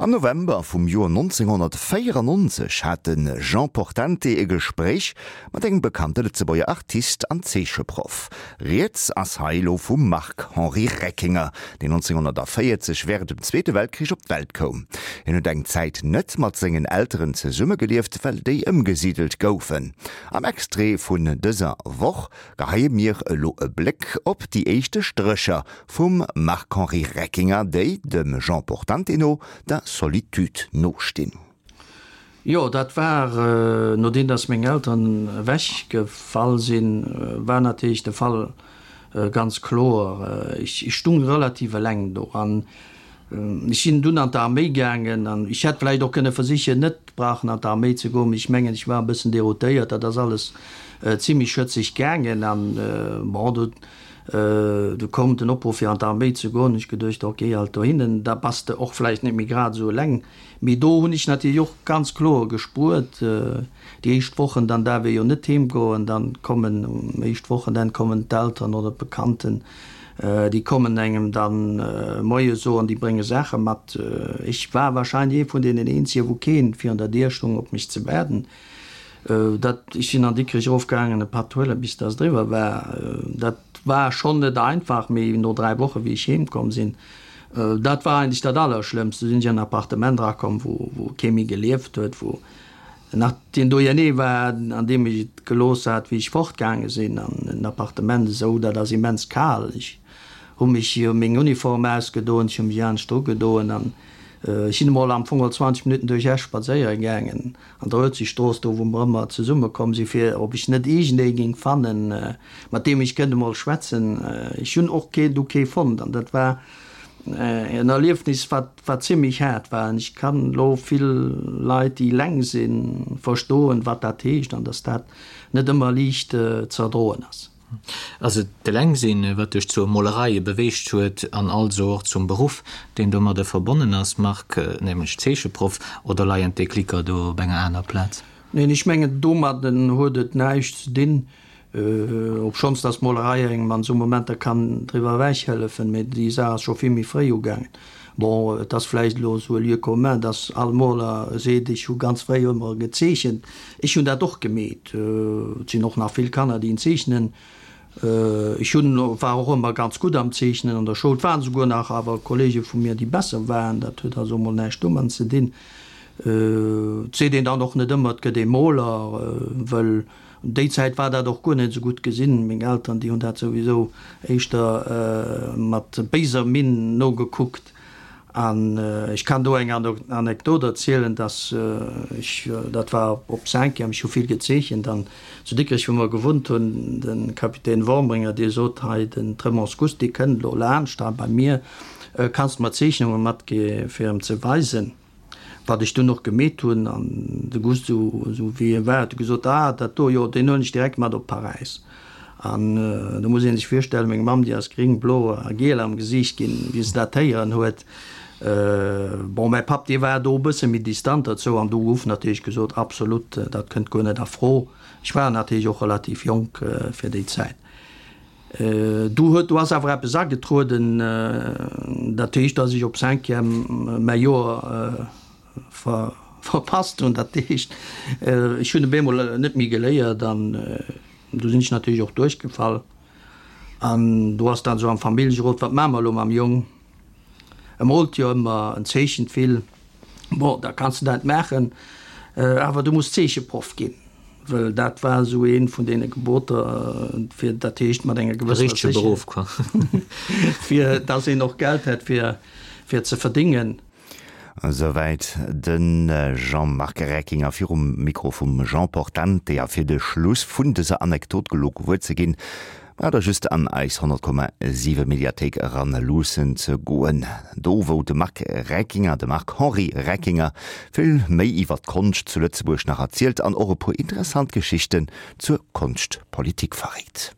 Am November vum Joer 1994 hat de Jean Portante e Gespréich mat engem bekannte Lëtzebuerger Artist an Zeecheproff. Rieds ass hei elo vum Marc-Henri Reckinger, deen 1940 wärend dem Zweete Weltkrich op d'Welt koum. Hien huet eng Zäit net mat sengen Elteren zesummegelieft, well déi ëmgesidelt goufen. Am Extrait vun dëser Woch geheie mir elo e Bléck op déi éischte Strécher vum Marc-Henri Reckinger, déi, dem Jean Portante no, der Solitude nostinn. Jo, dat war, nodeem dass meng Elteren ewech gefall sinn, war natierlech de Fall ganz kloer. Ech stung relativ eleng do an ech sinn dunn an d'Arméi gaangen an ech hätt vläicht och kënne versichen, net brauchen an d'Arméi ze goen, mee ech mengen, ech war e bëssen deroutéiert. Dat ass alles zimlech schëtzeg gaangen an bon, do du koum den Opruff fir an d'Arméi ze goen. Hu ech geduecht, ok, halt dohinnen, da bass de och vläicht net méi grad esou eleng. Mee do hunn ech natierlech och ganz kloer gespuert, déi éischt Wochen, dann daarf ee jo net heem goen, dann kommen um éischt Wochenenn kommen d'Elteren oder d'Bekannten, déi kommen engem dann Moie soen, déi brénge Saache mat. Ech war wahrscheinlech ee vun deenen eenzegen, wou keen virun der Dier stung op mech ze waarden. Dat, ech sinn an Dikrech erofgaangen e Patt huelen, bis dass et eriwwer war. Dat war schonn net einfach, mee no 3 Woche wéi ech heem komm sinn, Dat war eigentlech dat Allerschlëmmst. Du sinn ech an en Appartement erakomm, wou, wou kee méi gelieft huet, wou nach deen Doyenné war, an deem ech et gelooss hat, wéi ech fortgaange sinn. An en Appartement esou, dat ass immens kal. Ech hu mech, hu meng Uniform ausgedoen, ech hu mech anescht ugedoen an ech sinn emol am Fong all 20 Minutten duerch Esch spadséiere gaangen. An der Huelzestrooss, do wou mer ëmmer zesumme komm sinn, fir ob ech net iergendee géing fannen, mat deem ech kënnt emol schwätzen. Ech hunn och kee, du kee fonnt an dat war en Erliefnis, wat, wat zimlech haart war. An ech kann elo vill Leit, déi eleng sinn, verstoen, wat dat heescht an dass dat net ëmmer liicht ze erdroen ass. Ass et d'Elengsinn, wat dech zur Molerei beweegt huet an also och zum Beruff, deen domadde verbonnen ass, Marc, nämlech Zeecheproff, oder leien d'Déclicker do op enger aner Plaz? Neen, ech mengen, domadden huet et näischt ze dinn, obschonns dass d'Molerei engem an esou Momenter kann driwwer ewech hëllefen, mee déi Saach ass scho vill méi fréi ugaangen. Bon, et ass vläicht elo esou e Lieu commun, dass all Moler seet, ech hu ganz fréi ëmmer gezeechent. Ech hunn dat och gemeet. Et sinn och nach vill Kanner, déi zeechnen. Ech hunn, war och ëmmer ganz gutt am Zeechnen an der Schoul. Et waren esouguer nach awer Kollege vu mir, déi besser waren. Dat huet also emol näischt domat ze dinn. Et seet een dann och net ëmmer, et gëtt ee Moler, wëll Déi Zäit war dat och guer net esou gutt gesinn. Meng Elteren, déi hunn dat souwisou éischter mat béiser Minn nogekuckt. An ech kann do eng Anekdot erzielen, dass ech, dat war op Cinquième, ech hu vill gezeechent an zu Dikrech, wou mer gewunnt hunn, de Kapitän Wormringer, dee sot, Hei, den Tremonts Gust, dee kënnt elo laanscht hei bei mir, kanns de mer Zeechnunge matgi fir em ze weisen? Wat ech dunn och gemeet hunn, an de Gust, esou wéi e war, huet e gesot, Ah, dat do, jo, deen huelen ech direkt mat op Paräis. An do muss ee sech virstellen, meng Mamm, déi ass gring, blo a giel am Gesiicht ginn, wéi se dat héieren huet. Bon, mäi Papp, dee war do e bësse méi distant dozou an do gouf natierlech gesot, Absolut, dat kënnt guer net a Fro. Ech war natierlech och relativ jonk fir déi Zäit. Do huet, do ass awer eppes agetrueden, dat heescht, datt ech op Cinquième mäi Joer ver, verpasst hunn. Dat heescht, ech hunn op eemol net méi geléiert an do sinn ech natierlech och duerchgefall. An do ass dann esou am Familljerot, wat maache mer elo mam Jong? E moolt jo ëmmer, en zeechent vill. Bon, da kanns de dat maachen, awer du muss Zeecheproff ginn, wëll dat war esou eent vun deene Geboter, fir, dat heescht mat enger gewëssener Sécherheet, Beruff, quoi. fir dass een och Geld hätt fir, fir ze verdingen. Esouwäit de Jean-Marc Reckinger virum Mikro vum Jean Portante. A fir de Schluss vun dëser Anekdot gelo gewuer ze ginn, Braucht der just an eis 100,7 Mediathéik eran luussen ze goen, do wou de Marc Reckinger, de Marc-Henri Reckinger, vill méi iwwer d'Konscht zu Lëtzebuerg nach erzielt an och e puer interessant Geschichten zur Konschtpolitik verréit.